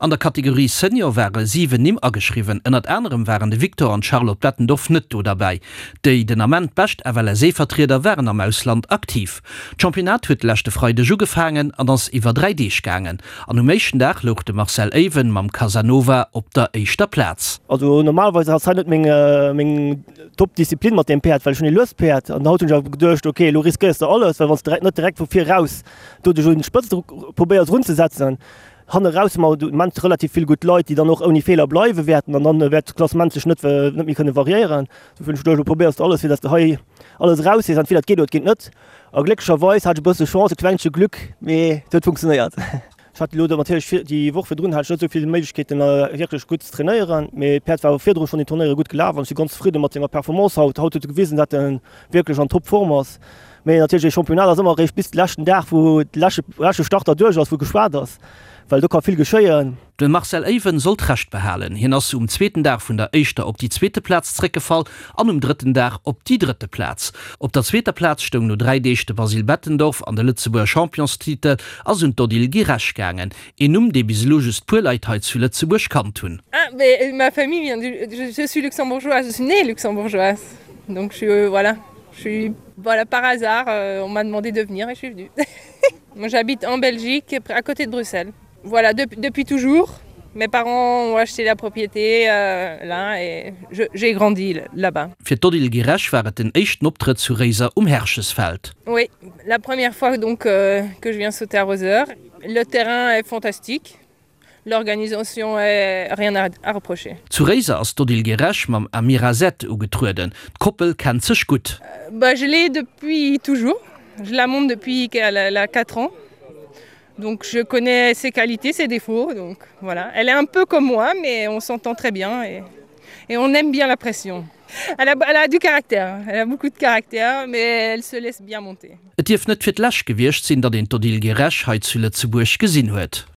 An der Kategorie Senior ware 7 Nimm ageschriwwen. Ënnert anerem waren de Victor an d'Charlotte Bettendorf net do derbäi. Déi den Ament bescht FLSE-Vertrieder waren am Ausland aktiv. D'Championnat huet de leschte Freideg ugefaangen an ass iwwer 3 Deeg gaangen. An um éischten Dag louch de Marcel Ewen mam Casanova op der éischter Plaz. Also normalerweis ass hei net meng meng Top Disziplin mat deem Päerd, well ech hunn ee luest Päerd an haut hunn ech awer geduecht, ok elo riskéiers de alles, well wann s de net direkt vu vir raus do dech un d'Spëtzt probéiers erunzesetzen, Hanne raus hu mer de Moment relativ vill gutt Leit, déi dann och ouni Feeler bleiwe wäerten an dann wäert d'Klassement sech net net méi kënne variéieren. Dofir hunn ech geduecht, elo probéiers de alles, fir datt s de hei alles eraushees. Entweder et geet oder et geet net. A glécklecherweis hat ech e bësse Chance, e klengche Glück, mee et huet funktionéiert. Ech hat elo natierlech vir déi Woch virdrun hat ech net esou vill Méiglechkeeten, wierklech gutt ze trainéieren, mee d'Päerd war awer virdru schonn déi Turnéiere gutt gelaf an ech si ganz zefridde mat senger Performance haut. Haut huet e gewisen, datt e wierklech an Topform ass. Mee natierlech, ee Championnat ass ëmmer eréischt bis de leschten Dag, wou de leschte leschte Starter duerch ass, wou geschwat ass, well do ka vill geschéien. De Marcel Ewen sollt Recht behalen. Hien ass um zweeten Dag vun der éischter op déi zweete Plaz zréckgefall an um drëtten Dag op déi drëtte Plaz. Op der zweeter Plaz stoung no 3 Deeg de Basile Bettendorf an de Lëtzebuerger Championstitel ass un d'Odile Guiresch gaangen, een Numm, dee bis elo just puer Leit hei zu Lëtzebuerg kannt hunn. Ah mais ma famille vient du je suis luxembourgeoise, je suis née luxembourgeoise donc je voilà. Je suis voilà par hasard euh, on m'a demandé de venir et je suis venue. Moi j'habite en Belgique à côté de Bruxelles. Voilà de, depuis toujours. Mes parents ont acheté la propriété euh, là et j'ai grandi là-bas. Fir d'Odile Guiresch war et den éischten Optrëtt zu Réiser um Herchesfeld. Oui, la première fois donc euh, que je viens sauter à Roser. Le terrain est fantastique. L'organisation est rien à, à reprocher. Zu Réiser ass d'Odile Guiresch mam Amira Z ugetrueden. D'Koppel kennt sech gutt. Bah, je l'ai depuis toujours. Je la monte depuis qu'elle a 4 ans. Donc je connais ses qualités, ses défauts. Donc voilà. Elle est un peu comme moi, mais on s'entend très bien et, et on aime bien la pression. Elle a, elle a du caractère, elle a beaucoup de caractère, mais elle se laisse bien monter. Et dierf net fir d'lescht gewiescht sinn, datt een d'Odile Guiresch hei zu Lëtzebuerg gesinn huet.